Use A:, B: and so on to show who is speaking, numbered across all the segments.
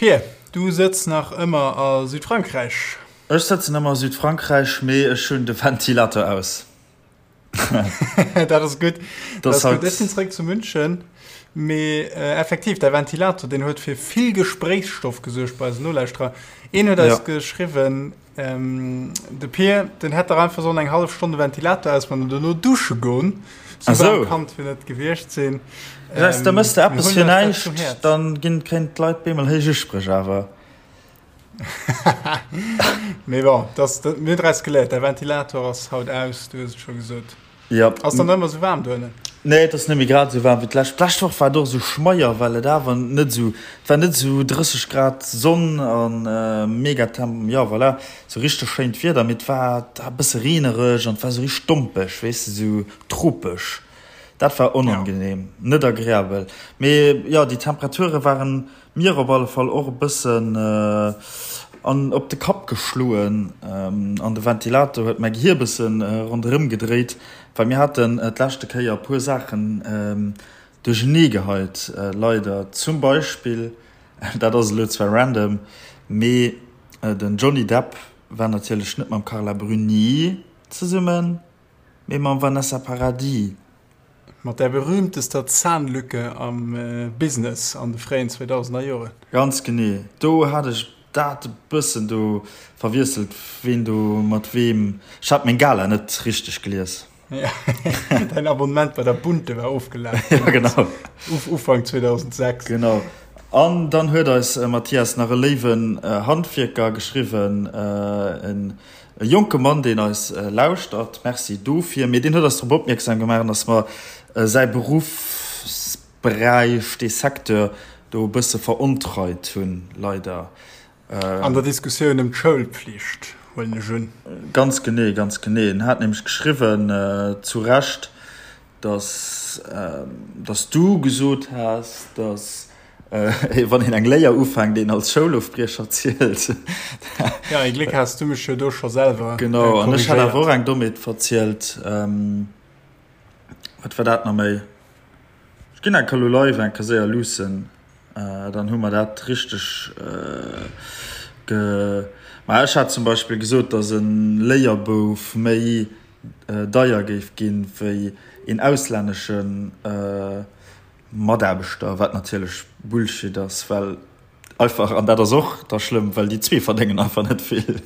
A: Pir, du sëtz nach ëmmer a Südfrankräich?
B: Ech sëtzen ëmmer a Südfrankräich, mee ech hunn de Ventilator aus.
A: Dat ass gutt. Dat ass gutt. Ech sinn zeréck zu München. Mee effektiv, däi Ventilator, deen huet fir vill Gespréichsstoff gesuergt bei eisen Nolauschterer. Een huet eis geschriwwen, de Pir, den hätt dach einfach sollen eng hallef Stonn de Ventilator ausman an dono dusche goen. Sou waarm kann et jo net gewiescht sinn.
B: Weess, da mëss de eppes fir näischt, dann ginn, kréien d'Leit bemol héich Uspréch awer.
A: Mee bon, das, das, mir hunn draus geléiert, däi Ventilator ass haut aus, du hues et scho gesot.
B: Ja.
A: Ass dann ëmmer sou waarm doënnen?
B: Nee, et ass net méi grad esou waarm wéi d'lescht. D'lescht Woch war et och esou schmeier, well et awer net esou, et war net esou 30 Grad Sonn an mega Temp, jo voilà, esou richteg schéint Wieder, mee et war e bësse reenereg an et war esou richteg dompeg, weess de, esou tropesch. Dat war onangenehm, net agreabel. Mee jo, déi Temperature waren Mir op alle Fall och e bëssen an op de Kapp geschloen an de Ventilator huet mäi Gehier e bëssen ronderëm gedréit, well mir haten d'leschte Kéier e puer Saachen duerchenee geheit, leider. Zum Beispill, dat ass elo zwar random, mee den Johnny Depp war natierlech net mam Carla Bruni zesummen, mee mam Vanessa Paradis.
A: Mat där berühmtester Zahnlücke am Business an de fréien 2000er Joren.
B: Ganz genee, do hat ech dat e bëssen do verwiesselt, ween do mat weem. Ech hat meng Gala net richteg gelies.
A: Däin Abonnement bei der Bunte war ofgelaf.
B: Ja, genau.
A: Ufank 2006.
B: Genau. An dann huet eis Mathias nach e léiwen Handwierker geschriwwen, en E jonke Mann, deen eis lauschtert, Merci dofir, mee deen huet eis drop opmierksam gemaach, dass mer säi Beruffsberäich, dee Secteur do e bësse verontreit hunn, leider.
A: An der Diskussioun ëm d'Schoulpflicht, huelen ech un.
B: Ganz genee, ganz genee. En hat nämlech geschriwwen, zu Recht, dass, dass du gesot has, dass wann een eng Léier ufänkt, een als Schoulofbriecher zielt.
A: Ja, ee Gléck has du mech jo do scho selwer
B: Genau, an ech hat awer och eng Dommheet verzielt. Wat war dat nach méi? Ech ginn eng Kéier elo live eng Kéier séier luussen, dann hu mer dat richteg ge. Ma ech hat zum Beispill gesot, dass e Léierbouf méi deier géif ginn, wéi een auslännesche Mataarbechter, wat natierlech Bullshit ass, well einfach, an dat ass och da schlëmm, well déi zwee verdéngen einfach net vill.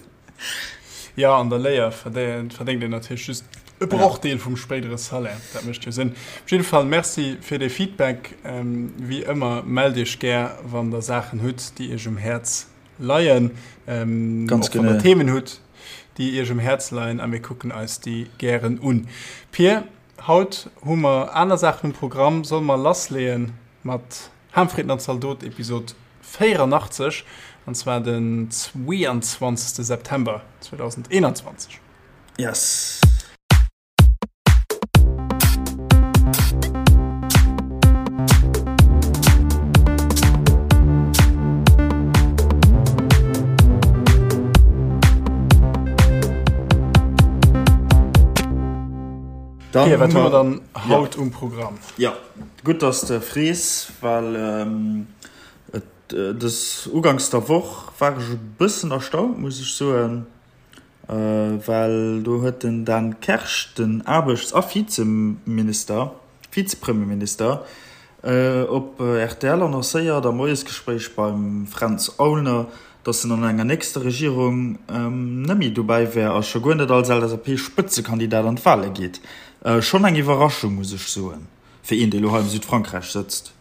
A: Jo, an der Léier verdéngt een natierlech just e Brochdeel vum spéidere Salaire. Dat mécht jo Sënn. Op jidde Fall Merci fir dee Feedback. Wéi ëmmer, mellt Iech gär, wann Der Saachen hutt, déi Iech um Häerz leien,
B: Ganz
A: och wann Der Themen hutt, déi Iech um Häerz leien, a mir kucken eis déi gären un. Pir, haut hu mer aner Saachen um Programm. Solle mer lassleeën mat Harmfritten an Zaldot, Episod 84, an zwar den 22. September 2021.
B: Yes.
A: Dann okay, wat hu mer dann haut ja. um Programm?
B: Ja, gutt, dass de frees, well ähm, et, äh, des Ugangs der Woch war ech e bëssen erstaunt, muss ech soen. Well do huet den Dan Kersch, den Aarbechts a Vizeminister, Vizepremierminister, op rtl annoncéiert am Moiesgespréich beim Fränz Aulner, datt en an enger nächster Regierung net méi dobäi wär a scho guer net als LSAP-Spëtzekandidat an d'Wale geet. Schonn eng Iwwerraschung, muss ech soen, fir een, dee lo hei am Südfrankräich sëtzt.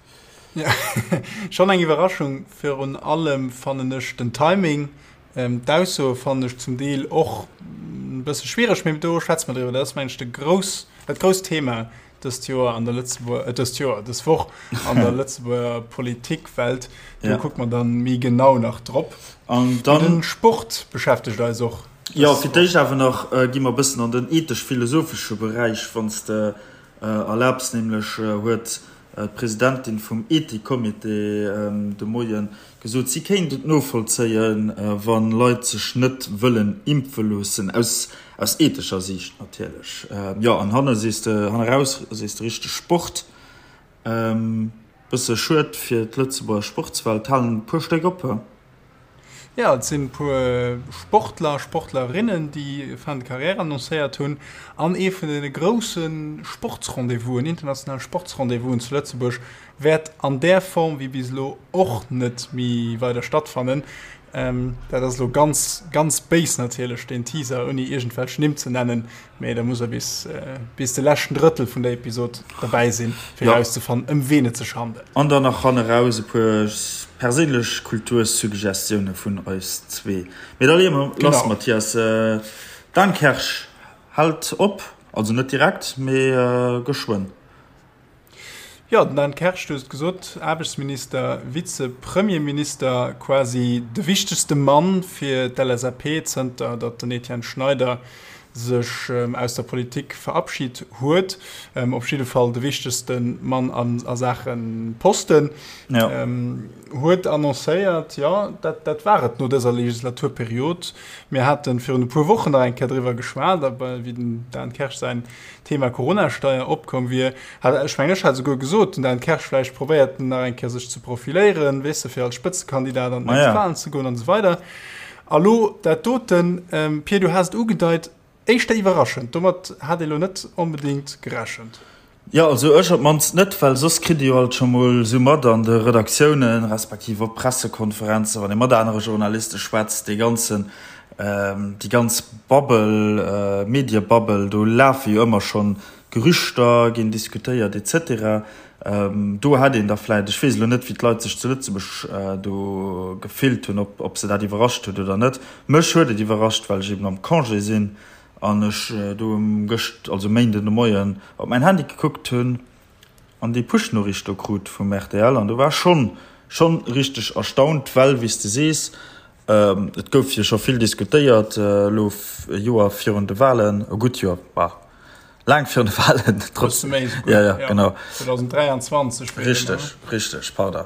A: Schonn eng Iwwerraschung, virun allem fannen ech den Timing. D'Aussoe fannen ech zum Deel och e bësse schwiereg, mee do schwätze mer driwwer. Dat ass, mengen ech, de grouss, dat grousst Thema dëst Joer an der Lëtzebuer, dëst Joer, dës Woch an der Lëtzebuerger Politikwelt. Do kucke mer dann méi genau nach drop.
B: An dann.
A: De Sport beschäftegt eis och.
B: Jo, fir d'éischt awer nach gi mer e bëssen an den ethesch-philosophesche Beräich, wann s de erlaabs. Nämlech huet d'Presidentin vum Ethikcomité de Moie gesot, si kéint et novollzéien, wa Leit sech net wëllen impfe loossen, aus aus ethescher Siicht natierlech. Jo, an hanne sees de, hanne raus sees de richteg Sport. Bësse schued fir d'Lëtzebuerger Sportswelt, halen e puer Stéck op.
A: Jo, et sinn e puer Sportler a Sportlerinnen, déi Fin de carrière annoncéiert hunn. An ee vun de grousse Sportsrendez-vousen, internationale Sportsrendez-vousen zu Lëtzebuerg wäert an där Form wéi bis elo och net méi weider stattfannen. Dat ass elo ganz, ganz béis natierlech, deen Teaser, ouni iergendwelch Nimm ze nennen. Mee da muss er bis, bis de leschten Drëttel vun der Episod derbäi sinn, fir ja. erauszefannen, ëm ween et sech handelt.
B: An dann nach hanneraus e puer perséinlech Kultursuggestioune vun eis zwee. Mee da leeë mer lass, Mathias. Dan Kersch hält op, also net direkt, mee geschwënn.
A: Jo, den Dan Kersch, du hues et gesot, Aarbechtsminister, Vize-Premierminister, quasi de wichtegste Mann fir d'LSAP, zënter datt den Etienne Schneider sech aus der Politik verabschit huet. Op jidde Fall de wichtegste Mann a Saache Posten. Huet annoncéiert, jo, dat war et no dëser Legislaturperiod. Mir hate virun e puer Wochen nach eng Kéier driwwer geschwat, wéi den Dan Kersch säin Thema Coronasteier opkomm wier, hat, ech mengen, ech hat esouguer gesot, den Dan Kersch vläicht probéiert en nach eng Kéier sech ze profiléieren, weess de, fir als Spëtzekandidat an d'nächst Wahlen ze goen an esou weider. A lo dat doten, Pir, du has et ugedeit, éischter iwwerraschend, domat hat ee lo net onbedéngt gerechent.
B: Jo, also ech op d'mannst net, well soss kritt ee jo alt scho mol esou mat an de Redaktiounen, respektiv op Pressekonferenzen, wann ee mat anere Journaliste schwätzt, dee ganzen, déi ganz Bubble, Mediebubble, do lafe jo ëmmer schonn Gerüchter, ginn diskutéiert et cetera. Do hätt een da vläicht, ech weess elo net, wéi d'Leit sech zu Lëtzebuerg do gefillt hunn, ob, ob se dat iwwerrascht huet oder net. Mech huet et iwwerrascht, well ech eben am Congé sinn an ech do gëscht, also Méinden de Moien, op mäin Handy gekuckt hunn an déi Push-Noriicht do krut vum rtl an do war ech schonn, schonn richteg erstaunt, well, wéi s de sees, Et gouf jo scho vill diskutéiert elo e Joer virun de Walen, e gutt Joer, bah, laang virun de Walen.
A: Bësse méi esouguer,
B: ja, ja, genau.
A: 2023.
B: Richteg, richteg, pardon.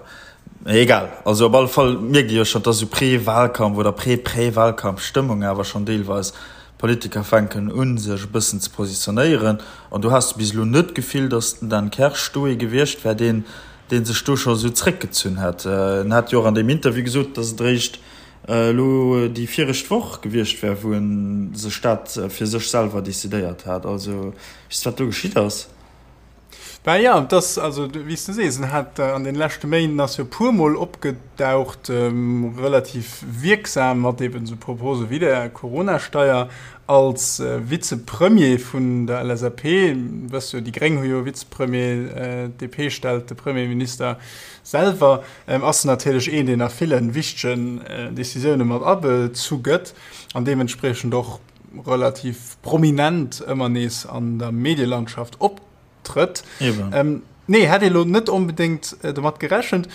B: Mee egal, also op alle Fall mierkt ee jo schonn, et ass esou Pré-Wahlkampf oder Pré-Pré-Wahlkampf-Stëmmung awer schonn deelweis. D'Politiker fänken un, sech e bëssen ze positionéieren an do has de bis elo net d'Gefill, datt den Dan Kersch do ee gewiescht wär, deen dee sech do scho sou zréckgezunn hätt. En hat jo och an deem Interview gesot, datt et eréischt elo déi viregt Woch gewiescht wär, wou e sech dat fir sech selwer decidéiert hat. Also, weess de, wat do geschitt ass?
A: Ben jo, et ass, also wéi s de sees, en hat an deene leschte Méinden ass jo e puermol opgedaucht, relativ wierksam mat eben esou Propose wéi der Coronasteier. Als Vizepremier vun der LSAP, wëss jo, déi Gréng hu jo e Vizepremier, d'DP stellt de Premierminister selwer, ass en natierlech een, deen a ville wichtegen Decisioune mat abezu gëtt an deementspriechend och relativ prominent ëmmer nees an der Medielandschaft optrëtt. Nee, hätt ee lo net onbedéngt domat gerechent.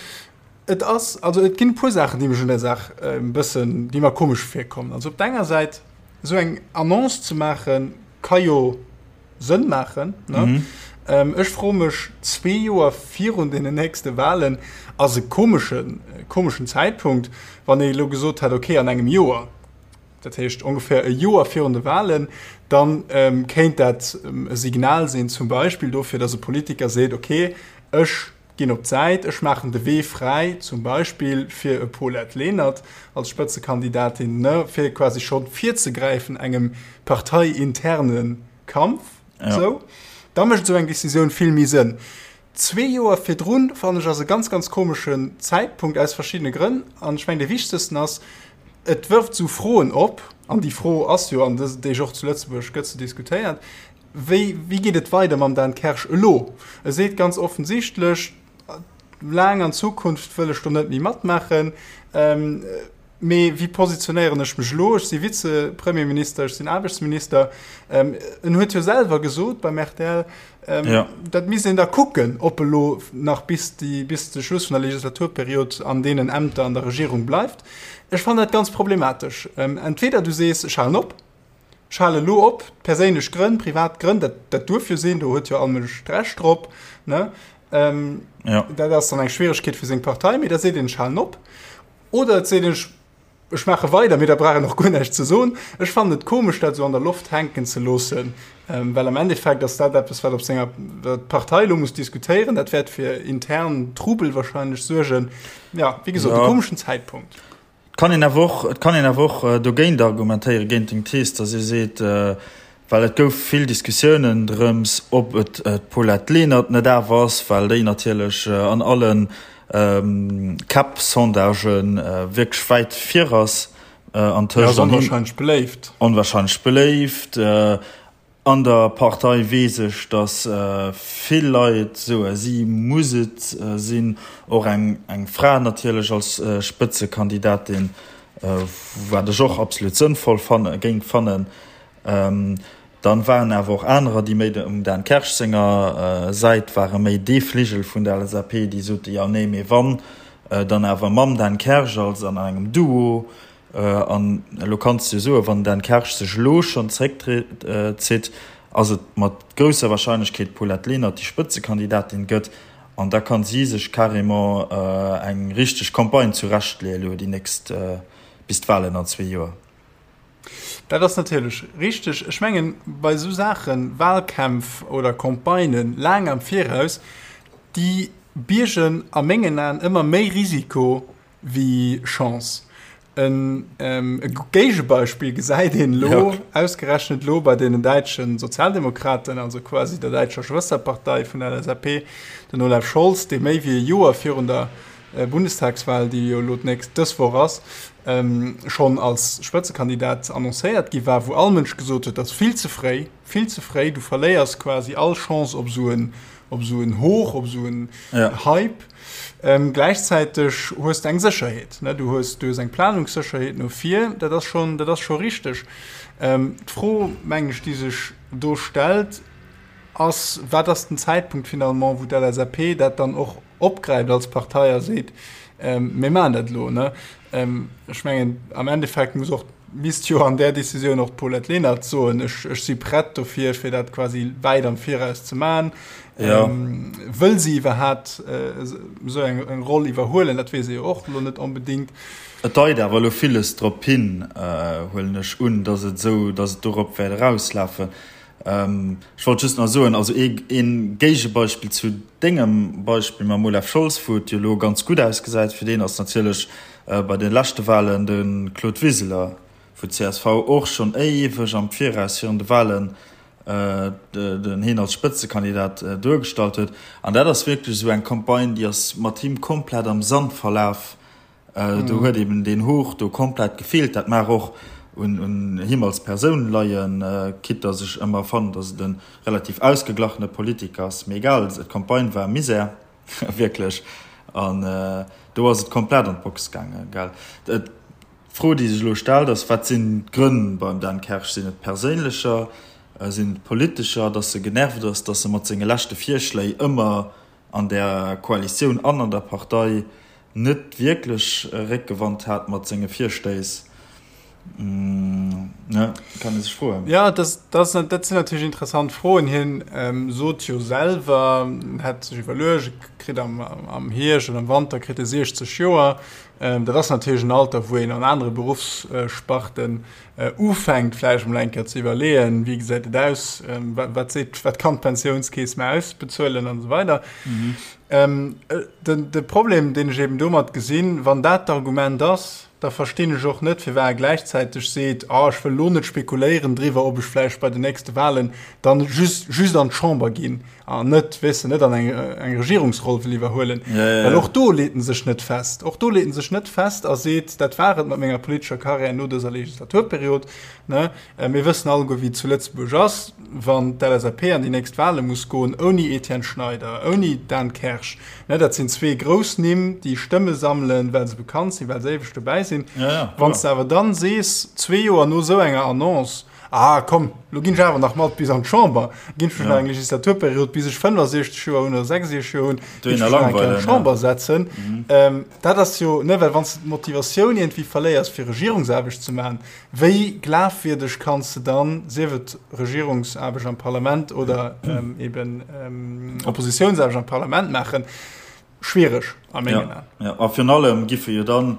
A: Et ass, also et ginn e puer Saachen, déi mech un der Saach e bëssen, déi mer komesch virkommen. Also op der enger Säit, esou eng Annonce ze maachen, ka jo Sënn maachen, ne? Mhm. Ech froe mech, zwee Joer virun deenen nächste Wahlen ass e komeschen, komeschen Zäitpunkt, wann ee elo gesot hätt, okay, an engem Joer, dat heescht ongeféier e Joer virun de Wahlen, dann kéint dat e Signal sinn, zum Beispill dofir, datt e Politiker seet, okay, ech ginn op d'Säit, ech maachen de Wee fräi, zum Beispill fir e Paulette Lenert als Spëtzekandidatin, ne, fir quasi scho virzegräifen engem parteiinterne Kampf. Ja. Sou. Da mécht esou eng Decisioun vill méi Sënn. Zwee Joer virdrun, fannen ech, ass e ganz, ganz komeschen Zäitpunkt aus verschiddene Grënn. An ech mengen, dee wichtegsten ass, et wërft esou Froen op, an déi Fro ass jo an dësen Deeg och zu Lëtzebuerg gëtt se diskutéiert, Wéi, wéi geet et weider mam Dan Kersch elo? E seet ganz offensichtlech, laang an Zukunft wëll ech do net méi matmaachen. Mee wéi positionéieren ech mech elo? Ech si Vize-Premierminister, ech sinn Aarbechtsminister. En huet jo selwer gesot beim rtl, dat misst een da kucken, ob e lo nach bis déi, bis de Schluss vun der Legislaturperiod an deenen Ämter an der Regierung bleift. Ech fannen dat ganz problematesch. Entweder du sees, ech halen op, Ech halen elo op, perséinlech Grënn, privat Grënn, dat, dat duerf jo sinn, do huet jo all Mënsch d'Recht drop, ne? Ähm, ja. Dat ass dann eng Schwieregkeet fir seng Partei, mee da seet een, ech halen op. Oder et seet een, ech Ech maache weider, mee da brauch een och guer näischt ze soen. Ech fannen et komesch, dat esou an der Loft hänken ze loossen, well am Endeffekt ass dat eppes, wat op senger, wat d'Partei elo muss diskutéieren. Dat wäert fir intern Trubel wahrscheinlech suergen. Ja, wéi gesot, e komeschen Zäitpunkt.
B: Et kann een awer och, et kann een awer och dogéint argumentéieren, géint deng Thees, datt ee seet, well et gouf vill Diskussiounen drëms, ob et d'Paulette Lenert net awer ass, well déi natierlech an alle Käpp-Sondagen wierklech wäit vir ass
A: antëscht. Ja, ass onwahrscheinlech beléift.
B: Onwahrscheinlech beléift. An der Partei weess ech, datt vill Leit soe si muss et sinn. Och eng Fra natierlech als Spëtzekandidatin, wat ech och absolut sënnvoll fanne géing fannen. Dann waren awer och anerer, déi méi um Dan Kersch senger Säit waren, méi dee Fligel vun der LSAP, déi sote jo nee, mee wann, dann awer mam Dan Kersch als an engem Duo. An elo kanns de jo soen, wann den Dan Kersch sech elo schonn zeréckzitt, ass et mat grousser Warscheinlechkeet d'Paulette Lenert, déi Spëtzekandidatin gëtt. An da kann si sech carrément eng richteg Campagne zurechtleeën elo déi nächst, bis d'Wahlen an zwee Joer.
A: Dat ass natierlech richteg. Ech mengen, bei esou Saachen, Wahlkämpf oder Campagnen laang am Viraus, déi biergen a mengen Aen ëmmer méi Risiko wéi Chance. E Géigebeispill gesäit een elo, ausgerechnet elo bei deenen däitsche Sozialdemokraten, also quasi der däitscher Schwësterpartei vun der LSAP, den Olaf Scholz, dee méi wéi e Joer virun der Bundestagswahl, déi jo elo d'nächst dës Woch ass, schonn als Spëtzekandidat annoncéiert gi war, wou all Mënsch gesot huet, dat ass vill ze fréi, vill ze fréi, du verléiers quasi all Chance op esou en, op esou en Hoch, op esou en Hype. Gläichzäiteg hues de eng Sécherheet, ne, du hues, du hues eng Planungssécherheet no vir, dat ass schonn, dat ass scho richteg. D'Fro, mengen ech, déi sech do stellt, ass, Wat ass den Zäitpunkt finalement, wou d'LSAP dat dann och opgräift als Partei a seet, Mir maachen dat elo? Ne? Ech mengen, am Endeffekt muss och, misst jo an där Decisioun och d'Paulette Lenert soen, ech, ech si prett dofir, fir dat quasi wäit am Viraus ze maachen. Ja. Wëll si iwwerhaapt esou eng, eng Roll iwwerhuelen? Dat weess ee jo och elo net onbedéngt.
B: Et deit awer elo villes drop hin, huelen ech un, datt et esou, datt et dorop wäert erauslafen. Ech wollt just nach soen, also ee Géigebeispill zu dengem Beispill mam Olaf Scholz, wou et jo elo ganz gutt ausgesäit fir deen, ass natierlech bei de leschte Wahlen de Claude Wiseler, wou d'CSV och schonn éiweg am Viraus virun de Wahlen den hien als Spëtzekandidat duergestallt huet. An dat ass wierklech esou eng Campagne, déi ass mat him komplett am Sand verlaf. Do huet eben deen Hoch do komplett gefeelt. Dat mag och un him als Persoun leien, quitte dass ech ëmmer fannen, dass et e relativ ausgeglachene Politiker ass. Mee egal, d'Campagne war Misär, wierklech. An do ass et komplett an d'Box gaangen, gell. D'Fro, déi sech elo stellt, ass, Wat sinn d'Grënn beim Dan Kersch? Sinn et perséinlecher, sinn et politescher, dass e genervt ass, dass e mat senge leschte Virschléi ëmmer an der Koalitioun an an der Partei net wierklech Réckgewand hat mat senge Virstéiss, ne, kann ee sech froen.
A: Jo, dat, dat sinn natierlech interessant Froen. Hien sot jo selwer, en hätt sech iwwerluecht, e kritt am, am Hierscht oder am Wanter kritt e 60 Joer. Dat ass natierlech en Alter, wou een an anere Beruffssparten ufänkt vläicht emol eng Kéier ze iwwerleeën, wéi gesäit et aus, wat seet, wat kann d'Pensiounskeess mer ausbezuelen an esou weider. Den, de Problem, deen ech eben domat gesinn, wann dat d'Argument ass, da verstinn ech och net, firwat e gläichzäiteg seet, ah, ech wëll elo net spekuléieren driwwer, ob ech vläicht bei den nächste Wahlen dann just, just an d'Chamber ginn an net, weess de, net an eng, eng Regierungsroll wëll iwwerhuelen. Ja, ja, ja. Well och do leet en sech net fest. Och do leet en sech net fest a seet, dat war et mat menger politescher Karriär no dëser Legislaturperiod. Ne? Äh, mir wëssen alleguer, wéi et zu Lëtzebuerg ass, wann d'LSAP an déi nächst Wahle muss goen, ouni Etienne Schneider, ouni Dan Kersch. Ne, dat sinn zwee grouss Nimm, déi Stëmme sammelen, well se bekannt sinn, well se éiweg dobäi sinn. Ja, ja, Wann s de awer dann sees, zwee Joer no esou enger Annonce, ah komm, lo ginn ech awer nach mat bis an d'Chamber, ginn ech mech nach eng Legislaturperiod, bis ech 65 Joer hunn oder 66 Joer hunn, ginn ech mech nach eng Kéier an d'Chamber setzen. Mhm. Ähm, dat ass jo, ne, well wann s de d'Motivatioun iergendwéi verléiers, fir Regierungsaarbecht ze maachen, Wéi glafwierdeg kanns de dann, sief et Regierungsaarbecht am Parlament oder eben Oppositiounsaarbecht am Parlament maachen? Schwiereg a mengen Aen.
B: Jo, a virun allem giffe jo dann,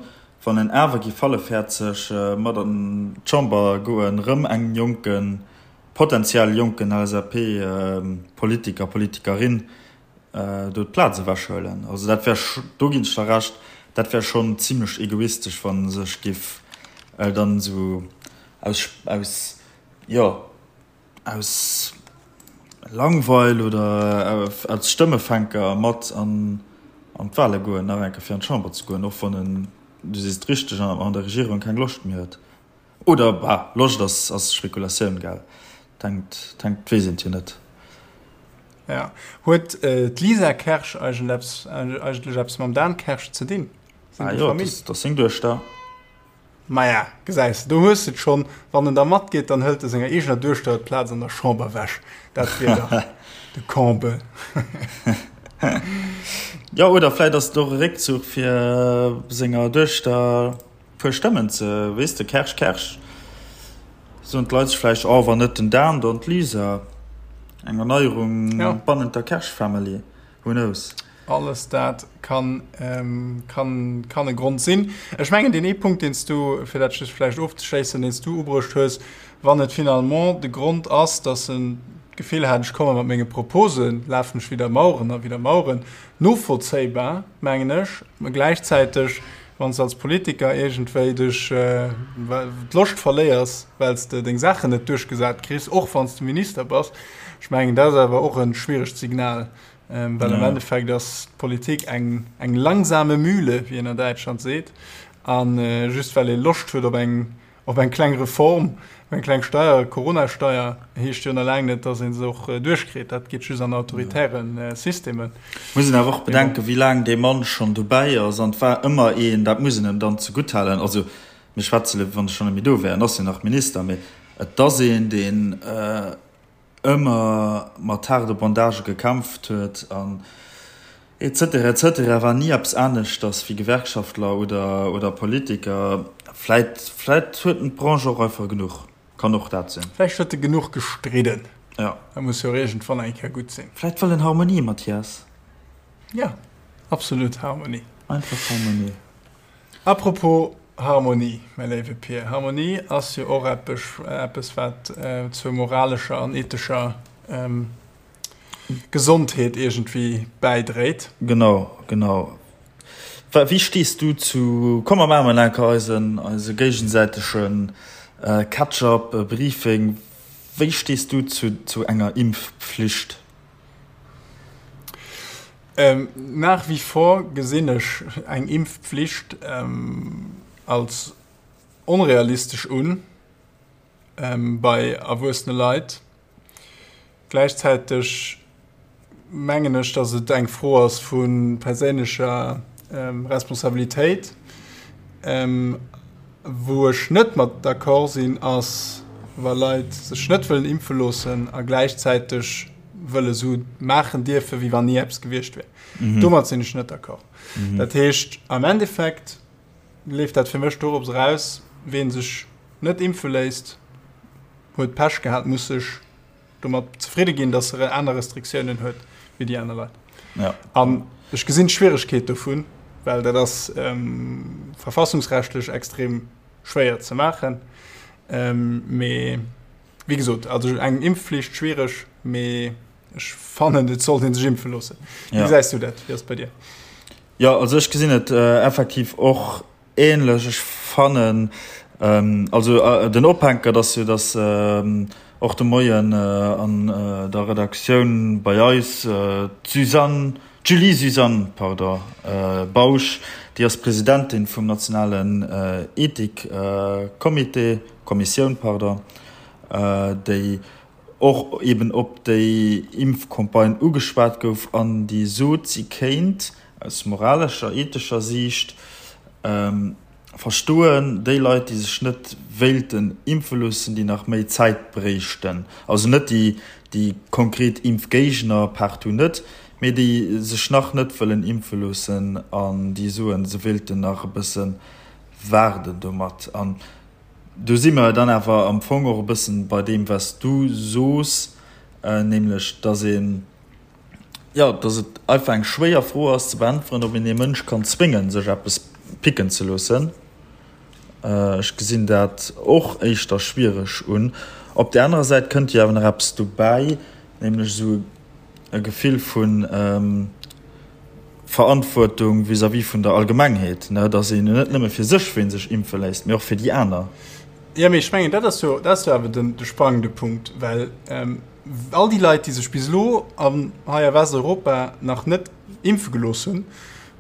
B: Wann en awer géif hallefhäerzeg mat an d'Chamber goen, rëm engem jonken, potenziell jonken LSAP-Politiker, Politikerin do d'Plaz ewechhuelen. Also dat wär, do ginn ech der Recht, dat wär schonn zimlech egoistesch, wa sech géif dann esou aus, aus, jo, aus Langweil oder als Stëmmefänker mat an d'Wale goen, nach eng Kéier fir an d'Chamber ze goen, och wann en, du sees et richteg, an der Regierung keng Loscht méi huet. Oder, bah, Loscht ass ass Spekulatioun, gell? Et hänkt, et hänkt, weess een et jo net.
A: Ja. Huet d'Lisa Kersch eigentlech eppes mam Dan Kersch ze dinn?
B: Sinn déi Famill? Ah jo, dat ass seng Duechter.
A: Maja, gesäis de, do hues de et schonn. Wann en da matgeet, dann hëlt e senger eegener Duechter d'Plaz an der Chamber ewech. Dat wier dach de Comble.
B: Jo, oder vläit ass et och e Réckzuch, fir senger Duechter e puer Stëmmen ze, weess de, Kersch, Kersch, soen d'Leit sech vläicht, oh, wann net den Dan, dann d'Lisa. Eng Erneierung bannent der Kersch-Family. Who knows?
A: Alles dat kann, kann, kann e Grond sinn. Ech mengen, deen ee Punkt, deen s du, fir dat just vläicht ofzeschléissen, deen s du ubruecht hues, wann et finalement de Grond ass, dass en d'Gefill hat, ech komme mat menge Proposen, lafen ech widder Maueren a widder Maueren, novollzéibar, mengen ech, mä gläichzäiteg, wann s de als Politiker iergendwéi dech d'Loscht verléiers, well s de deng Saachen net duerchgesat kriss, och wann s de Minister bass, ech mengen, dat ass awer och e schwieregt Signal. Well am Endeffekt ass d'Politik eng eng langsame Mühle, wéi een an Däitschland seet. A just well ee Loscht huet op eng op eng kleng Reform, op eng kleng Steier, Corona-Steier, heescht jo nach laang net, datt ee se och duerchkritt. Dat geet just an autoritäre Systemen.
B: Muss een awer och bedenken, wéi laang dee Mann schonn dobäi ass. An et war ëmmer een, dat muss een em dann zegutthalen, also mir schwätze lo, wéi wann e schonn net méi do wär, en ass jo nach Minister, mee et ass een, deen, ëmmer mat haarde Bandagë gekämpft huet an et cetera, et cetera, war ni eppes aneschters wéi Gewerkschaftler oder, oder Politiker. Vläit, vläit huet en d'Branche och einfach genuch, kann och dat sinn.
A: Vläicht huet e genuch gestridden.
B: Ja.
A: Dat muss jo och iergendwann eng Kéier gutt sinn.
B: Vläit wëll en Harmonie, Mathias.
A: Ja, absolut Harmonie.
B: Einfach Harmonie.
A: Apropos Harmonie, mäi léiwe Pir, Harmonie ass jo och eppes, wat zur moralescher an ethescher Gesondheet iergendwéi bäidréit.
B: Genau, genau. Wéi stees du zu, komm mer maache mol enker eisen, eise géigesäitege Catch-up, Briefing, wéi stees du zu, zu enger Impfpflicht?
A: Nach wie vor gesinn ech eng Impfpflicht als onrealistesch un bei erwuessene Leit. Gläichzäiteg mengen ech, datt et eng Fro ass vu perséinlecher Responsabilitéit. Wou ech net mat d'accord sinn, ass wa Leit sech net wëllen impfe loossen a gläichzäiteg wëlle sou maachen dierfen, wéi wann ni eppes gewiescht wär. Mhm. Domat sinn ech net d'accord. Mhm. Dat heescht, am Endeffekt leeft dat fir mech dorops eraus, ween sech net impfe léisst, huet Pech gehat, muss sech domat zefridde ginn, dass er aner Restriktiounen huet wéi déi aner Leit.
B: Ja.
A: An ech gesinn d'Schwieregkeet dovun, well dat ass ähm, verfassungsrechtlech extrem schwéier ze maachen. Ähm, mee Wéi gesot, also eng Impfflicht schwiereg, mee ech fannen et sollt een sech impfe loossen. Wéi gesäis du dat? Wéi ass et bei dir?
B: Jo, also ech gesinn et effektiv och ähnlech. Ech fannen, also den Ophänker, dass jo, dass och de Moien an der Redaktioun bei eis d'Suzanne, d'Julie Suzanne, pardon, Bausch, déi ass Presidentin vum nationalen Ethikcomité, Kommissioun, pardon, déi och eben op déi Impfcampagne ugeschwat gouf an déi sot, si kéint aus moralescher, ethescher Siicht verstoen, déi Leit, déi sech net wéilten impfe loossen, déi nach méi Zäit bréichten, also net déi, déi konkret Impfgéigner, partout net, mee déi sech nach net wëllen impfe loossen an déi soen, se wéilten nach e bësse waarden domat. An do si mer dann awer am Fong och e bëssen bei deem, wat s du sos, nämlech dass een, jo, dass et einfach eng schwéier Fro ass ze beäntweren, ob een ee Mënsch kann zwéngen, sech eppes picken ze loossen. Ech gesinn dat och éischter schwiereg un. Op där anerer Säit kënnt jo awer nach eppes dobäi, nämlech esou e Gefill vu Verantwortung vis-à-vis vun der Allgemengheet, ne, dass een jo net nëmme fir sech ween sech impfe léisst, mee och fir déi aner.
A: Jo, mee ech mengen, dat ass jo, dat ass jo awer den, de sprangende Punkt, well all déi Leit, déi sech bis elo an hei a Westeuropa nach net impfe gelooss hunn,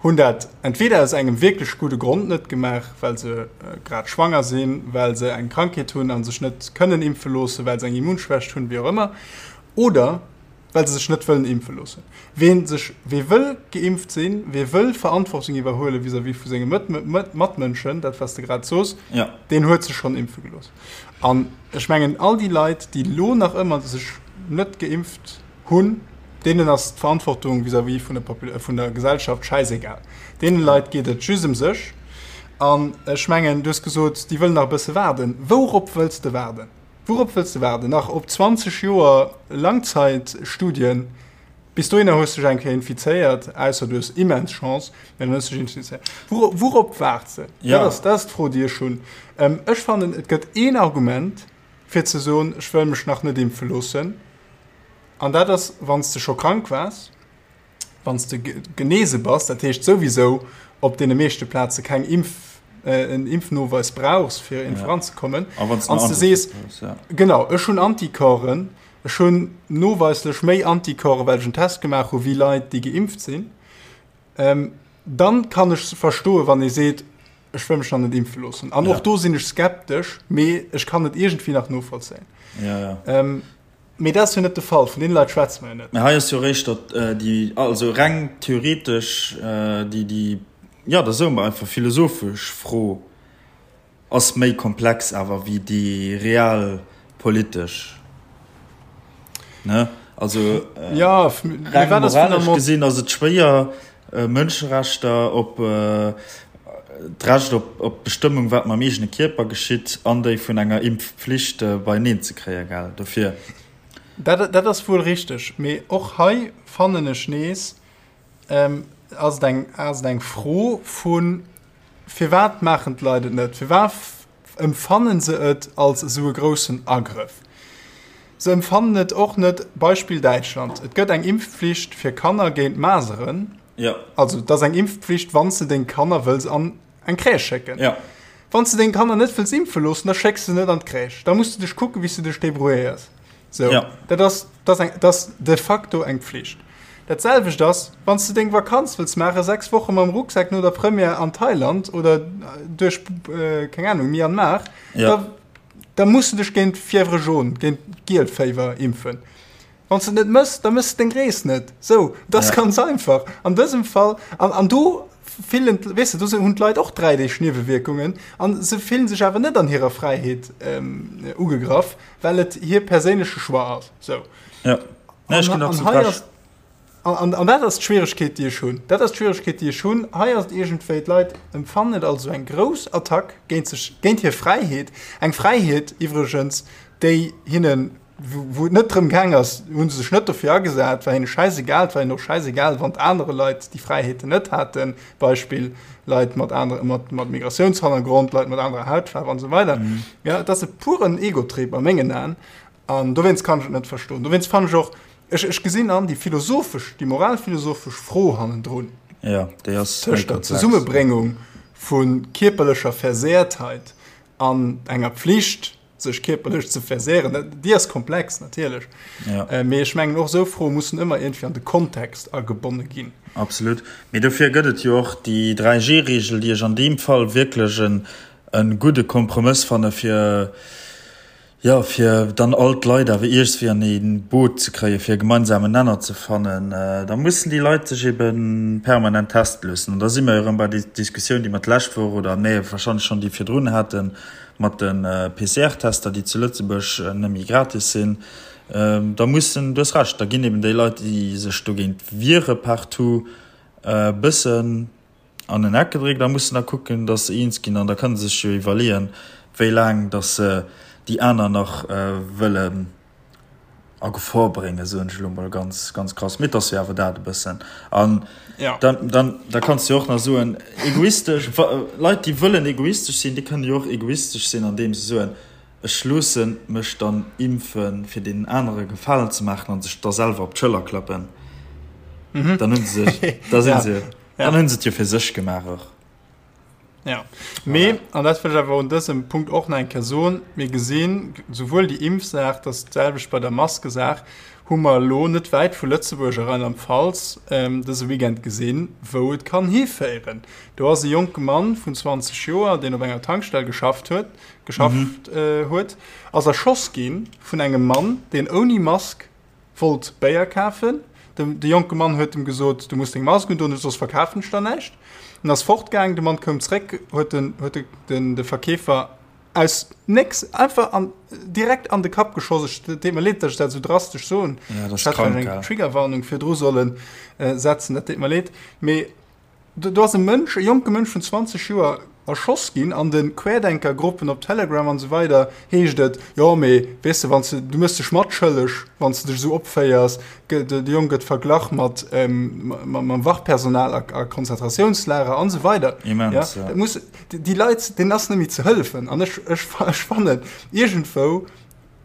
A: hunn dat entweder aus engem wierklech gudde Grond net gemaach, well se grad schwanger sinn, well se eng Krankheet hunn a sech net kënnen impfe loossen, well se eng Immunschwächt hunn, wéi och ëmmer, oder well se sech net wëllen impfe loossen. Wee sech, wee wëll geimpft sinn, wee wëll Verantwortung iwwerhuele vis-à-vis vu senge Matmënschen, dat wat s de grad sos, deen huet sech schonn impfe gelooss. An ech mengen, all déi Leit, déi elo nach ëmmer sech net geimpft hunn, deenen ass d'Verantwortung vis-à-vis vun der, vun der Gesellschaft schäisegal. Deene Leit geet et just ëm sech. An ech mengen, du hues gesot, déi wëllen nach e bësse waarden. Wourop wëlls de waarden? Wourop wëlls de waarden? Nach op 20 Joer Langzeitstudien? Bis dohinner hues de dech eng Kéier infizéiert, ausser du hues immens Chance, mä dann hues de dech infizéiert. Wourop waarts de? Dat ass, dat ass d'Fro, déi ech hunn. Ech fannen, et gëtt een Argument, fir ze soen, ech wëll mech nach net impfe loossen, an dat ass, wann s de scho krank waars. Wann s de genese bass, dat heescht souwisou op deene meeschte Plaze keng Impf, en Impfnoweis brauchs, fir ja. voranzekommen.
B: An
A: s de sees, ja. genau, ech hunn Anticorpsen, ech hunn noweislech méi Anticorpsen, well ech en Test gemaach hu wéi Leit, déi geimpft sinn, ähm, dann kann ech verstoen, wann ee seet, ech wëll mech nach net impfe loossen. An ja. och do sinn ech skeptesch, mee ech kann et iergendwéi nach novollzéien.
B: Ja, ja.
A: Ähm, Mee dat ass jo net de Fall, vun deene Leit schwätze mer jo net.
B: Mä hei ass jo eréischt datt déi, also reng theoretesch, déi, déi, jo, da soe mer einfach philosophesch Fro ass méi komplex awer wéi déi real politesch, ne? Also reng moralesch gesinn ass et schwéier, Mënscherechter op d'Recht op d'Bestëmmung, wat mam eegene Kierper geschitt, an déi vun enger Impfpflicht beieneen ze kréien, gell? Dofir.
A: Dat, dat ass wuel richteg, mee och hei fannen ech nees, ass et eng, ass et eng Fro vu firwat maachen d'Leit et net? Firwat Empfannen se et als esou e groussen Agrëff? Se empfannen et och net, Beispill Däitschland, et gëtt eng Impfpflicht fir Kanner géint Maseren, also et ass eng Impfpflicht wann s de deng Kanner wëlls an eng Crèche schécken. Wann s de deng Kanner net wëlls impfe loossen, da schécks de se net an d'Crèche, da muss de dech kucken, wéi s de dech débrouilléiers. Sou, dat ass, dat ass eng, dat ass de facto eng Pflicht. Dat selwecht ass, wann s de deng Vakanz wëlls maachen, 6 Woche mam Rucksak no der Première an Thailand oder duerch, keng Ahnung, Myanmar, da, da muss de dech géint Fièvre jaune, géint Gielféiwer impfen. Wann s de et net mëss, da mëss de deng Rees net. Sou, dat ass ganz einfach. An dësem Fall, an, an do fillen, weess de, do hunn d'Leit och 3 Deeg Niewewierkungen a se fillen sech awer net an hirer Fräiheet ugegraff, well et hir perséinleche Choix ass. Sou.
B: Ja. Nee, ech ginn absolut recht.
A: An, an dat ass d'Schwieregkeet, déi ech hunn. Dat ass d'Schwieregkeet, déi ech hunn. Hei ass et iergendwéi, d'Leit empfannen et als esou eng grouss Attack géint sech, géint hir Fräiheet. Eng Fräiheet iwwregens, déi hinnen, wou et net drëm gaang ass, hu se sech net dofir agesat, war hinne schäisegal. Et war hinnen och schäisegal, wann anere Leit déi Fräiheeten net haten, Beispill, Leit mat anere, mat, mat Migratiounshannergrond, Leit mat anerer Hautfaarf an esou weider. Ja, et ass e puren Egotrip a mengen Aen. An dowéinst kann ech et net verstoen. Dowéinst fannen ech och, ech, ech gesinn an déi philosophesch, déi moralphilosophesch Fro hannendrun.
B: Ja, déi ass méi
A: Tëscht der
B: komplex.
A: Zesummebréngung vu kierperlecher Versehrtheit an enger Pflicht, sech kierperlech ze versehren, dat, déi ass komplex natierlech.
B: Ja.
A: Mee ech mengen, och esou Froe mussen ëmmer iergendwéi an de Kontext agebonne ginn.
B: Absolut. Mee dofir gëtt et jo och déi 3G-Regel, déi ech an deem Fall wierklech en, e gudde Kompromëss fanne fir, Jo, fir dann all d'Leit awer iergswéi an ee Boot ze kréien, fir e gemeinsamen Nenner ze fannen, da mussen déi Leit sech ebe permanent teste loossen. An da si mer jo erëm bei der Diskussioun, déi mer d'lescht Woch oder, nee, warscheinlech schonn déi virdrun haten, mat de PCR-Tester, déi zu Lëtzebuerg net méi gratis sinn. Da mussen, du hues Recht, da ginn eben déi Leit, déi sech dogéint wiere partout, e bëssen, an en Eck gedréckt a mussen da kucken, datt se eens ginn. An da kënne se sech jo iwwerleeën, wéi laang datt se déi aner nach wëlle. A Gefor bréngen, soen ech elo mol ganz, ganz krass. Mee et ass jo awer dat e bëssen. An ja. dann, dann, da kanns du jo och nach soen, egoistesch, Leit, déi wëllen egoistesch sinn, déi kënnen jo och egoistesch sinn, andeem se soen, ech loosse mech dann impfen, fir deenen anere Gefalen ze maachen, a sech da selwer op d'Schëller klappen. Mhm. Dann hunn se sech, da sinn se, dann hunn se et jo fir sech gemaach och.
A: Ja. Mee, an dat wëll ech awer un dësem Punkt och nach eng Kéier soen, mir gesinn, souwuel déi Impfsaach, dat ass d'selwecht bei der Maskesaach, hu mer elo net wäit vu Lëtzebuerg a Rheinland-Pfalz dëse Weekend gesinn, wou et kann hiféieren. Do ass e jonke Mann vun 20 Joer, deen op enger Tankstell geschafft huet, geschafft huet, ass erschoss gi vun engem Mann, deen ouni Mask Wollt Béier kafen. De jonke Mann huet em gesot, Du muss deng Mask undoen, soss verkafen ech der näischt. En ass fortgaang. De Mann koum zréck, huet den, huet den, de Verkeefer aus nécks einfach an, direkt an de Kapp geschoss. Ech, et deet mer leed, datt ech dat esou drastesch soen.
B: Ja, dat ass krank,
A: gell. Ech hätt vläicht eng Triggerwarnung virdru solle setzen, dat deet mer leed. Mee Do ass e Mënsch, e jonke Mënsch vun 20 Joer erschoss ginn. An de Querdenkergruppen op Telegram an esou weider heescht et, jo mee weess de, wann s de, du méchs dech matschëlleg, wann s de dech esou opféiers. De Jong gëtt verglach mat mam Wachpersonal a Konzentratiounslager an esou weider.
B: Immens,
A: ja. Dat muss, déi Leit, deenen ass net méi ze hëllefen. An ech, ech, ech fannen, iergendwou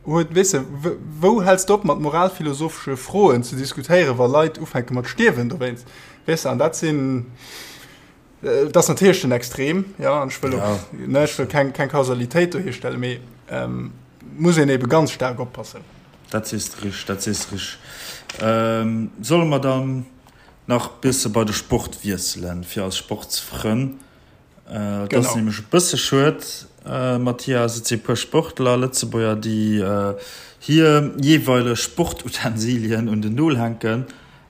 A: Huet, weess de, wou häls de op mat moralphilosophesche Froen ze diskutéieren, wa Leit ufänke mat stierwen dowéinst, weess de? An dat sinn, dat ass natierlech den Extrem, jo, an ech wëll och, ne, ech wëll keng, keng Kausalitéit do hierstellen, mee muss een ebe ganz staark oppassen.
B: Dat sees de richteg, dat sees de richteg. Solle mer dann nach bësse bei de Sport wiesselen, fir eis Sportsfrënn? Et ass nämlech e bësse schued, Mathias, et si e puer Sportler, Lëtzebuerger, déi hir jeeweileg Sportutensilien un den Nol hänken.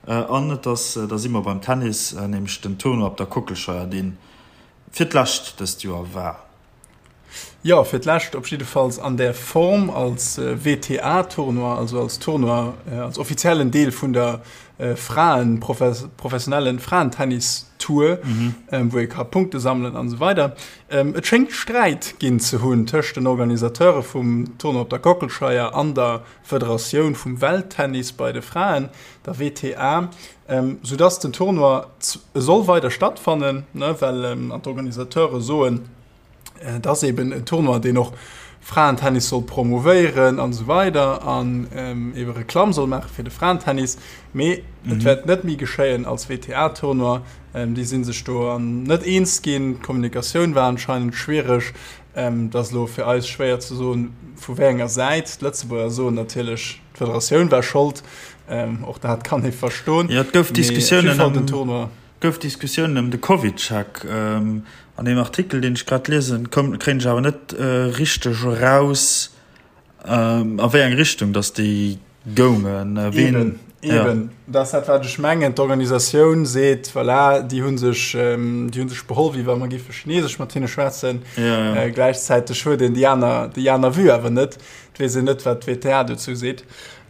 B: An et ass, da si mer beim Tennis, nämlech den Tournoi op der Kockelscheier, dee fir d'lescht dëst Joer war.
A: Jo, fir d'lescht op jiddefalls an där Form als WTA-Tournoi, also als Tournoi, als offiziellen Deel vun der Fraen, professionellen Fraentennis-Tour, wou ee ka Punkte sammelen an esou weider. Et schéngt Sträit ginn ze hunn tëscht den Organisateure vum Tournoi op der Kockelscheier an der Federatioun vum Welttennis bei de Fraen, der WTA, soudass den Tournoi soll weider stattfannen, well an d'Organisateure soen, Et ass eben en Tournoi, deen och Fraentennis soll promouvéieren an esou weider an ebe Reklamm soll maache fir de Fraentennis. Mee et wäert net méi geschéien als WTA-Tournoi. Déi si sech do net eens ginn. D'Kommunikatioun war anscheinend schwiereg. Et ass elo fir eis schwéier ze soen, vu wéi enger Säit. D'Lëtzebuerger soen natierlech, d'Federatioun war Schold. Och dat kann ee verstoen.
B: Jo, et gouf Diskussiounen ëm. Gouf Diskussiounen ëm de CovidCheck. An deem Artikel, deen ech grad liesen, koum, kréien ech awer net richteg eraus, a wéi eng Richtung datt déi goungen.
A: Ween, Eben, eben. Dat ass dat, wat ech mengen. D'Organisatioun seet, voilà, déi hu sech, déi hu sech beholl, wéi wa mer géife Chinesesch mat hinne schwätzen.
B: Ja, ja.
A: Gläichzäiteg huet een déi aner, déi aner Vue awer net. Et weess een net, wat d'WTA dozou seet.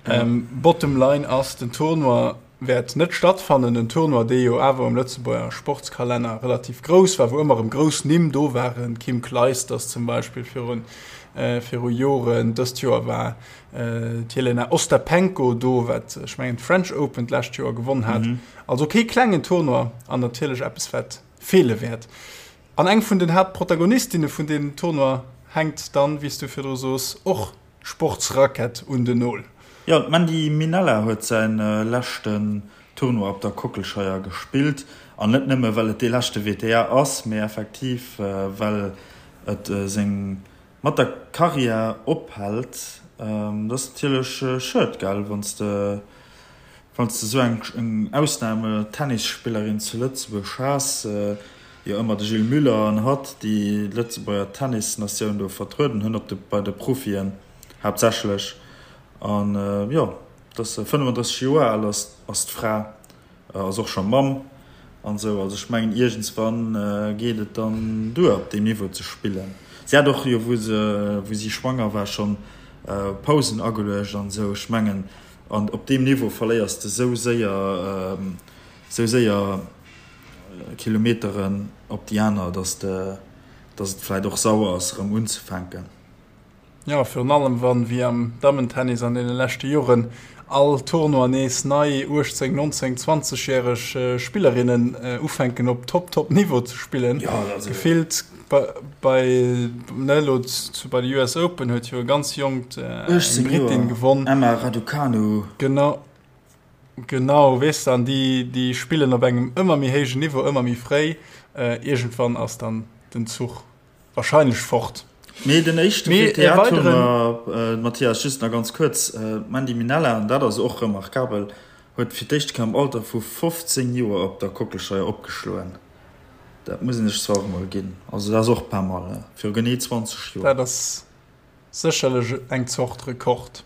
A: Bottom line ass, den Tournoi wäert net stattfannen, en Tournoi, dee jo awer um Lëtzebuerger Sportskalenner relativ grouss war, wou ëmmer erëm grouss Nimm do waren, Kim Clijsters zum Beispill viru viru Joren, dëst Joer war d'Jelena Ostapenko do, wat ech mengen d'French Open d'lescht Joer gewonn hat. Also kee klengen Tournoi an natierlech eppes, wat feele wäert. An eng vun den Haaptprotagonistinne vun deem Tournoi hänkt dann, wéi s du virdru soos, och Sportsrackett un den Nol.
B: Jo, d'Mandy Minella huet säi leschten Tournoi op der Kockelscheier gespillt. An net nëmme well et dee leschte WTA ass, mee effektiv well et seng mat der Karriär ophält. Dat ass natierlech schued, gell, wann s de wann s de esou eng Ausname-Tennisspillerin zu Lëtzebuerg has. Jo ëmmer de Gilles Muller an hatt, déi d'Lëtzebuerger Tennisnatioun do vertrueden hunn, op de, bei de Profien haaptsächlech. An jo, et ass 35 Joer al ass, ass d'Fra, ass och scho Mamm an esou. Also ech mengen iergendswann geet et dann duer op deem Niveau ze spillen. Si hat och jo wou se, wou si schwanger war schonn Pausen ageluecht an esou. Ech mengen an op deem Niveau verléiers de sou séier, sou séier Kilometeren op déi aner, dass de, dass et vläit och sauer ass erëm unzefänken.
A: Jo, virun allem wann, wéi am Dammentennis an deene leschte Joren, all Tournoi nees nei 18, 19, 20 järeg Spillerinnen ufänken op Top, Top Niveau ze spillen. Gefillt bei, ne, elo bei de US Open huet jo e ganz jonkt, eng Brittin
B: gewonn. Emma Raducanu.
A: Genau, genau, weess de, an déi, déi spillen op engem ëmmer méi héijen Niveau, ëmmer méi fréi. Iergendwann ass dann den Zuch Wahrscheinlech fort.
B: Mee den éischte WTA-Tournoi, Mathias, just nach ganz kuerz, d'Mandy Minella, an dat ass och remarkabel, huet fir d'éischt Kéier am Alter vu 15 Joer op der Kockelscheier opgeschloen. Dat muss een sech zwar och emol ginn. Also dat ass och pas mal, viru genee 20 Joer.
A: Dat ass Sécherlech eng Zort Rekord.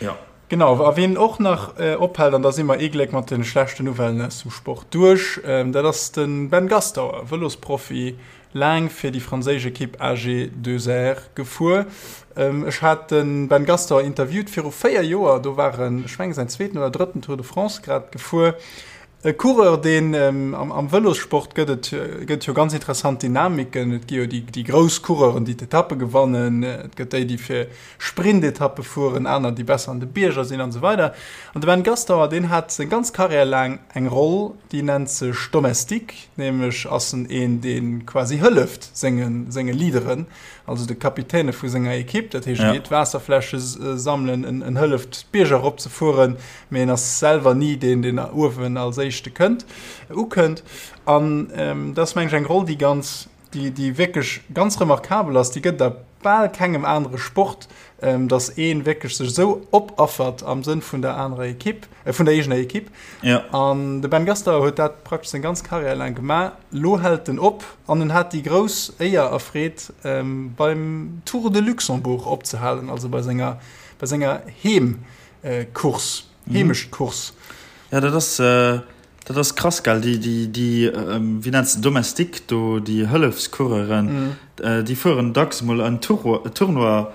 B: Ja.
A: Genau, a wien och nach ophält, an da si mer ee Gléck mat de schlechten Nouvellen aus dem Sport duerch, dat ass de Ben Gastauer, Vëlosprofi, laang fir déi franséisch Ekipp AG2R gefuer. Ech hat de Ben Gastauer interviewt viru 4 Joer, do war en, ech mengen, säin zweeten oder drëtten Tour de France grad gefuer. E Coureur, deen am Vëlossport gëtt et gëtt jo ganz interessant Dynamiken. Et gi jo déi déi grouss Coureuren, déi d'Etappe gewannen. Et gëtt déi, déi fir Sprintetappe fueren, aner, déi besser an de Bierger sinn an esou weider. An de Ben Gastauer, deen hat seng ganz Karriär laang eng Roll, déi nennt sech Domestique, nämlech ass en een, dee quasi hëlleft senge senge Leaderen, also de Kapitäne vu senger Ekipp. Dat heescht, e geet Waasserfläsche sammelen, en hëlleft d'Bierger eropzefueren, mee en ass selwer ni deen, deen uewen als éischte kënnt, ukënnt. An dat ass, meng ech, eng Roll, déi ganz, déi, déi wierklech ganz remarkabel ass. Déi gëtt et a bal kengem anere Sport, dass ee wierklech sech esou opaffert am Sënn vun der anerer Ekipp, vun der eegener Ekipp.
B: Ja.
A: An de Ben Gastauer huet dat praktesch seng ganz Karriär laang gemaach. Lo hält en op an en hat déi grouss Éier a Freed, beim Tour de Luxembourg opzehalen, also bei senger, bei senger Heem, Course, Heemechtcourse.
B: Ja, dat ass, dat ass krass, gell? Déi, déi, déi, wéi nenns de, Domestique do, déi Hëllefscoureuren, déi fueren dacks emol en Tour, Tournoi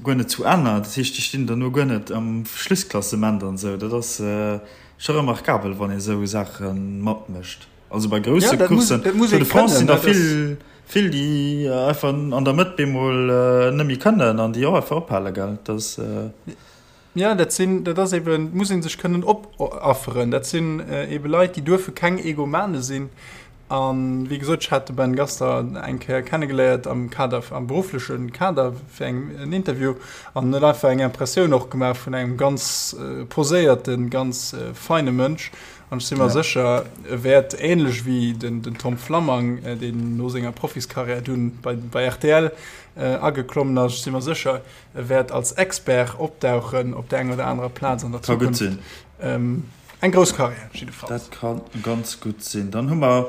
B: guer net zu Enn. Dat heescht, déi stinn dann no guer net am Schlussklassement an esou. Dat ass scho remarkabel, wann ee sou Saache matmécht. Also bei grousse Courssen, Tour de France, sinn der vill, vill, déi einfach an der Mëtt bemol net méi kënnen an déi och einfach ophale, gell? Dat ass.
A: Ja, dat sinn, dat ass eben, muss ee sech kënnen opafferen. Dat sinn ebe Leit, déi duerfe keng Egomane sinn. A wéi gesot, ech hat de Ben Gaster eng Kéier kennegeléiert am Kader, am beruffleche Kader fir eng, en Interview an huet einfach eng Impressioun och gemaach vun engem ganz poséierten, ganz feine Mënsch. An ech si mer sécher, e wäert änlech wéi den Tom Flammang, deen no senger Profiskarriär dunn bei, bei rtl ageklommen ass, ech si mer sécher, E wäert als Expert opdauchen op der enger oder anerer Plaz an der
B: Zukunft. Ka gutt sinn.
A: Eng grouss Karriär jiddefalls.
B: Dat ka ganz gutt sinn. Dann hu mer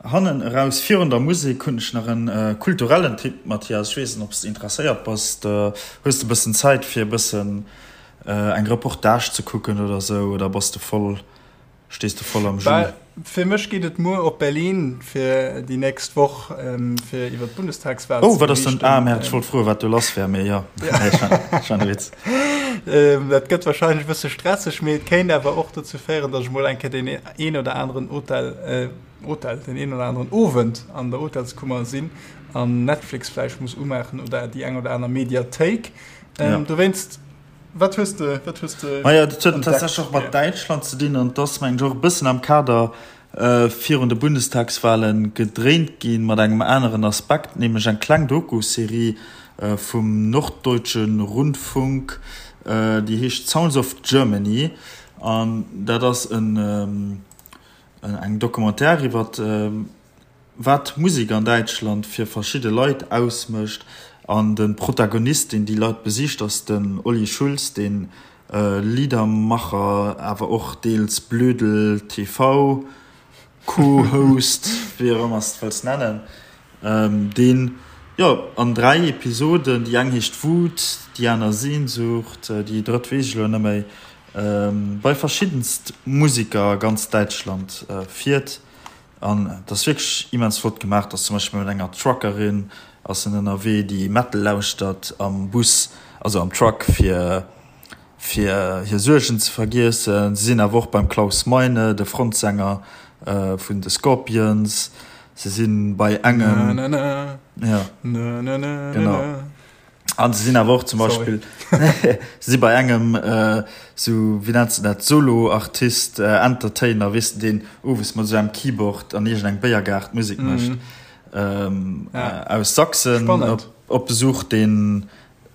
B: hannen eraus, virun der Musek, hunn ech nach e kulturellen Tipp, Mathias. Ech weess net, ob s de interesséiert bass. Hues de e bëssen Zäit, fir e bëssen eng Reportage ze kucken oder sou, oder bass de voll Stees de voll am
A: Jus? Fir mech geet et muer op Berlin fir déi nächst Woch fir iwwer d'Bundestagswahl
B: ze beriichten. Oh, wat ass denn? Ah, merde, ech wollt froen, wat do lass wär, mee jo, ech war e Witz.
A: Dat gëtt warscheinlech e bësse stresseg, mee et kéint awer och dozou féieren, datt ech mol eng Kéier deen een oder aneren Hotel, Hotel, deen een oder aneren Owend an der Hotelskummer sinn an Netflix vläicht muss umaachen oder déi eng oder aner Mediathéik. Dowéinst. Wat hues de, wat hues de
B: Maja, dat huet tatsächlech och mat Däitschland ze dinn an et ass, mengen ech, och e bëssen am Kader virun de Bundestagswahlen gedréint ginn, mat engem aneren Aspekt, nämlech eng kleng Doku-Serie vum Norddeutsche Rundfunk, déi heescht Sounds of Germany an dat ass en eng Documentaire iwwer wat d'Musek an Däitschland fir verschidde Leit ausmécht. An de Protagonist, deen déi Leit besicht, ass den Olli Schulz, dee Liedermacher, awer och deels Blödel TV Co-Host, wéi och ëmmer s de wëlls nennen, deen, jo, an 3 Episoden, déi eng heescht Wut, déi aner Sehnsucht, déi drëtt weess ech elo net méi, bei verschiddenst Museker a ganz Däitschland fiert. An et ass wierklech immens flott gemaach. Et ass zum Beispill mat enger Truckerin ass en ënnerwee, déi Metal lauschtert am Bus, also am Truck, fir fir hir Suergen ze vergiessen. Se sinn awer och beim Klaus Meine, de Frontsänger vun de Scorpions. Se si bei engem, ja, genau. An se sinn awer och zum Beispill se si bei engem sou, wéi nenns de dat, Solo-Artist, Entertainer, weess de, deen owes mat esou engem Keyboard an iergendengem Béiergaart Musek mécht, aus Sachsen op Besuch, deen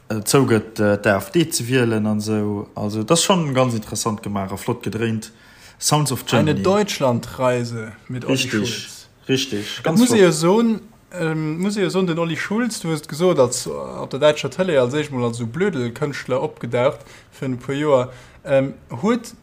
B: zougëtt d'AfD ze wielen an esou. Also et ass schonn ganz interessant gemaach a flott gedréint. Sounds of
A: Germany. Eine Deutschlandreise mit
B: Olli Schulz. Richtig,
A: richtig. Ganz flott. Muss ee jo soen, muss ee jo soen, den Olli Schulz, du hues et gesot, als op der däitscher Tëlee als éischt mol als esou Blödelkënschtler opgedaucht virun e puer Joer, huet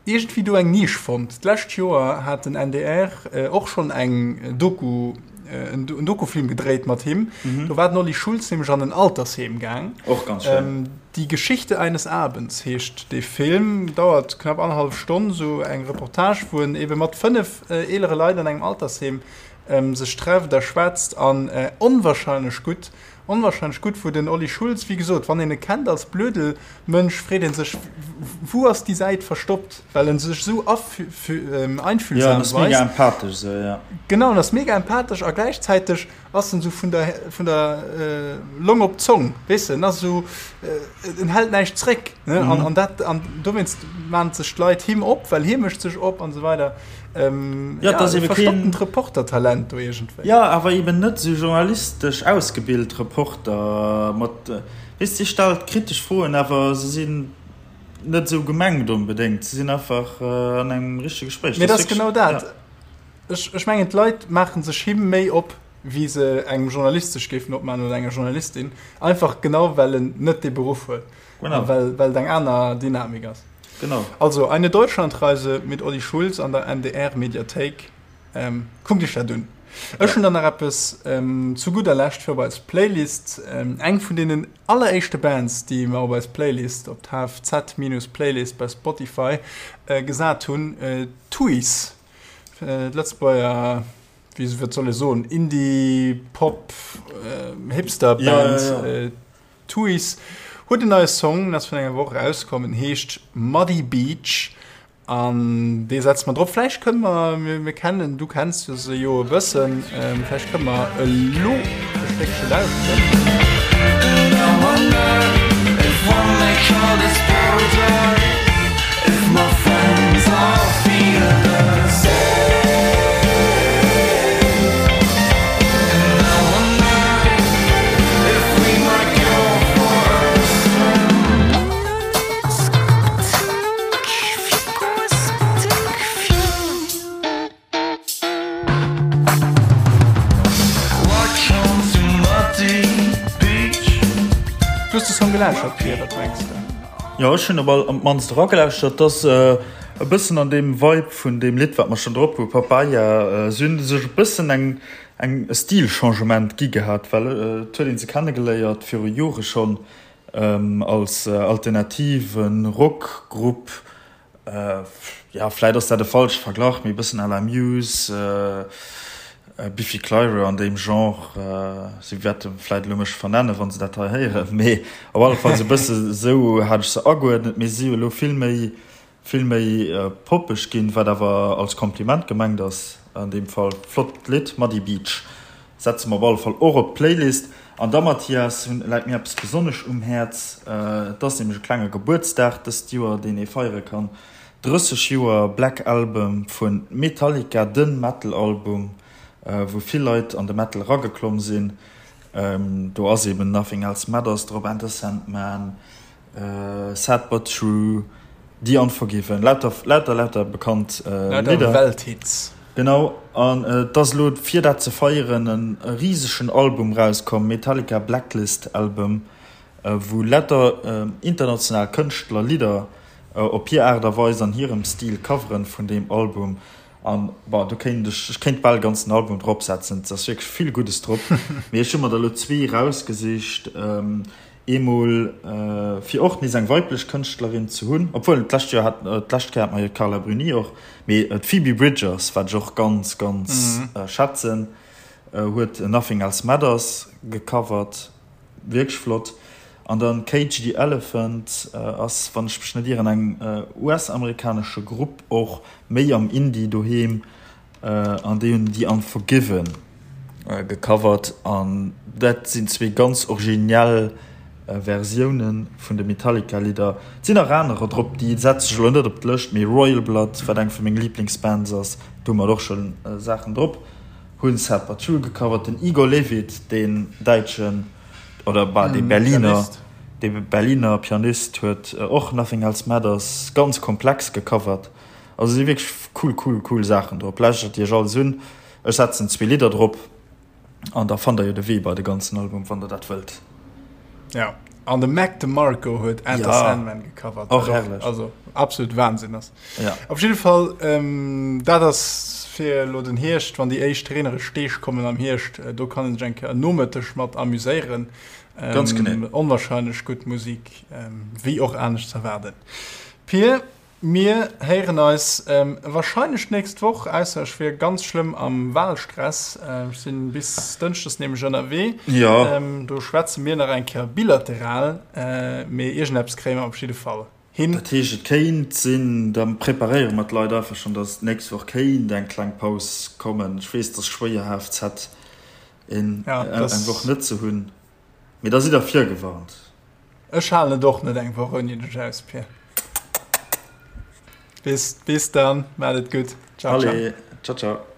A: iergendwéi do eng Nisch fonnt. D'lescht Joer hat den NDR och schonn eng Doku, en Dokufilm gedréit mat him. Do war den Olli Schulz nämlech an en Altersheem gaang.
B: Och ganz schéin.
A: Die Geschichte eines Abends heescht dee Film, dauert knapp annerhallef Stonn, esou eng Reportage, wou en ebe mat 5 eelere Leit an engem Altersheem sech trefft a schwätzt an onwahrscheinlech gutt, onwahrscheinlech gutt, wou den Olli Schulz, wéi gesot, wann een e kennt als Blödelmënsch, freet ee sech, wou ass déi Säit verstoppt, well en sech esou einfühlsam
B: weist. Ja, en ass mega empathesch esou, ja.
A: Genau, en ass mega empathesch a gläichzäiteg ass en esou vun der, vun der Long op d'Zong, weess de, en ass esou, en hält näischt zréck, ne, an, an dat, an dowéinst maan sech d'Leit him op, well hie mécht sech op an esou weider.
B: Ähm, ja, ja,
A: e verstopptent Reportertalent do iergendwéi.
B: Ja, awer eben net esou journalistesch ausgebilt Reporter mat, weess, si stellt kritesch Froen, awer se sinn net esou gemengt onbedéngt, se sinn einfach an engem richtege Gespréich.
A: Mee dat ass genau dat. Ja. Ech, ech mengen, d'Leit maache sech him méi op, wéi se engem Journalist sech géifen opmaachen oder enger Journalistin, einfach genau well en net dee Beruff huet.
B: Genau.
A: Well, well et eng aner Dynamik ass.
B: Genau.
A: Also, Eine Deutschlandreise mit Olli Schulz an der NDR-Mediathéik. Ähm, kuckt iech dat un. Ech hunn dann nach eppes ähm, zu gudder Lescht fir op eis Playlist. Ähm, eng vun deenen alleréischte Bands, déi mer op eis Playlist, op d'HFZ-Playlist bei Spotify äh, gesat hunn, äh, Tuys, äh, d'Lëtzebuerger, wéi wat soll ee soen, Indie-Pop, äh, Hipster-Band.
B: Ja, ja, ja.
A: Äh, Tuys huet en neie Song, en ass virun enger Woch erauskomm, en heescht Muddy Beach an dee setze mer drop. Vläicht kënne mer, mir kennen, du kenns se jo e bëssen, vläicht kënne mer elo e Stéckche lauschteren. Du hues de Song gelauschtert, Pir, wat mengs de?
B: Jo, ech hunn op all op d'mannst eragelauschtert. Et ass e bëssen an deem Vibe vun deem Lidd, wat mer schonn drop hu, Papaya. Si hunn sech e bëssen eng eng e Stilchangement gi gehat, well et huet een se kennegeléiert viru Jore schonn als alternative Rockgrupp, jo vläit ass dat e falsche Verglach, mee e bëssen à la Muse, Biffy Clyro an deem Genre. Si wäerte vläit elo mech vernennen, wa se dat hei héieren, mee op alle Fall esou e bësse sou hat ech se ageuerdnet. Mee si hu elo vill méi Vill méi poppeg ginn, wat awer als Kompliment gemengt ass an deem Fall. Flott Lidd, Muddy Beach setze mer op alle Fall och op d'Playlist. An da Mathias, läit mir eppes besonnesch um Häerz, et ass nämlech e klenge Gebuertsdag dëst Joer, deen ee feiere kann, 30 Joer Black Album vu Metallica, de Metal-Album, wou vill Leit an de Metal erageklomm sinn. Do ass eben Nothing Else Matters drop, Enter Sandman, Sad but True, The Unforgiven, lauter, lauter, lauter bekannt
A: Lidder. Lauter Welthits.
B: Genau, an et ass elo fir dat ze feieren e risegen Album rauskomm, Metallica Blacklist Album, wou lauter international Kënschtler Lidder op hir Aart a Weis an hirem Stil coveren vun deem Album. An bon, do kéint ech, ech kéint bal e ganzen Album drop setzen, et ass wierklech vill Guddes drop. Mee ech hu mer der elo zwee rausgesicht. Eemol fir och nees eng weiblech Kënschtlerin ze hunn, obwuel d'lescht Joer hat, d'lescht Kéier hat mer jo d'Carla Bruni och, mee d'Phoebe Bridgers, wat ech och ganz, ganz schätzen, huet Nothing Else Matters gecovert, wierklech flott. An dann Cage the Elephant ass, wann ech mech net ieren, eng US-amerikanesche Grupp, och méi am Indie doheem, An déi hunn The Unforgiven gecovert an dat sinn zwee ganz originell. Versioune vun de Metallica Lidder. Et sinn nach anerer drop, déi setze ech elo net op d'Lëscht, mee Royal Blood, wat eng vu menge Liblingsbands ass, do hu mer och scho Saachen drop, hunn Sad But True gecovert. Den Igor Levit, deen däitschen, oder bah, dee Berliner, dee Berliner Pianist huet och Nothing Else Matters ganz komplex gecovert. Also si wierklech cool, cool, cool Saachen drop. Lauschtert iech alles un. Ech setzen zwee Lidder drop. An da fannt der jo de Wee bei de ganzen Album, wann der dat wëllt.
A: Ja, an de Mac DeMarco huet Enter ja, Sandman gecovert.
B: Och herrlech.
A: Also absolut Wahnsinn ass.
B: Ja.
A: Op jidde Fall, ähm, dat ass fir lo den Hierscht, wann déi éischt reenereg Deeg kommen am Hierscht, äh, do kann een sech eng Kéier en Nomëtteg mat amuséieren.
B: Ähm, Ganz genee.
A: Onwahrscheinlech gutt Musik, ähm, wéi och anescht z'erwaarden. Pir, Mir héieren eis wahrscheinlech d'nächst Woch, ausser ech wier ganz schlëmm am Wahlstress. Ech sinn bis Dënschdes nämlech ënnerwee.
B: Jo.
A: Do schwätze mir nach eng Kéier bilateral, mee iergendeppes kréie mer op jidde Fall hin.
B: Dat heescht, et kéint sinn, da preparéiere mer d'Leit einfach schonn, dass d'nächst Woch kéint eng kleng Paus kommen. Ech weess, et ass schwéier, HFZ eng Woch net ze hunn, mee da sidd der virgewarnt.
A: Ech halen et och net eng Woch ouni dech aus, Pir. Bis, bis dann, maat et gutt.
B: Ciao, ciao. Allez, ciao, ciao.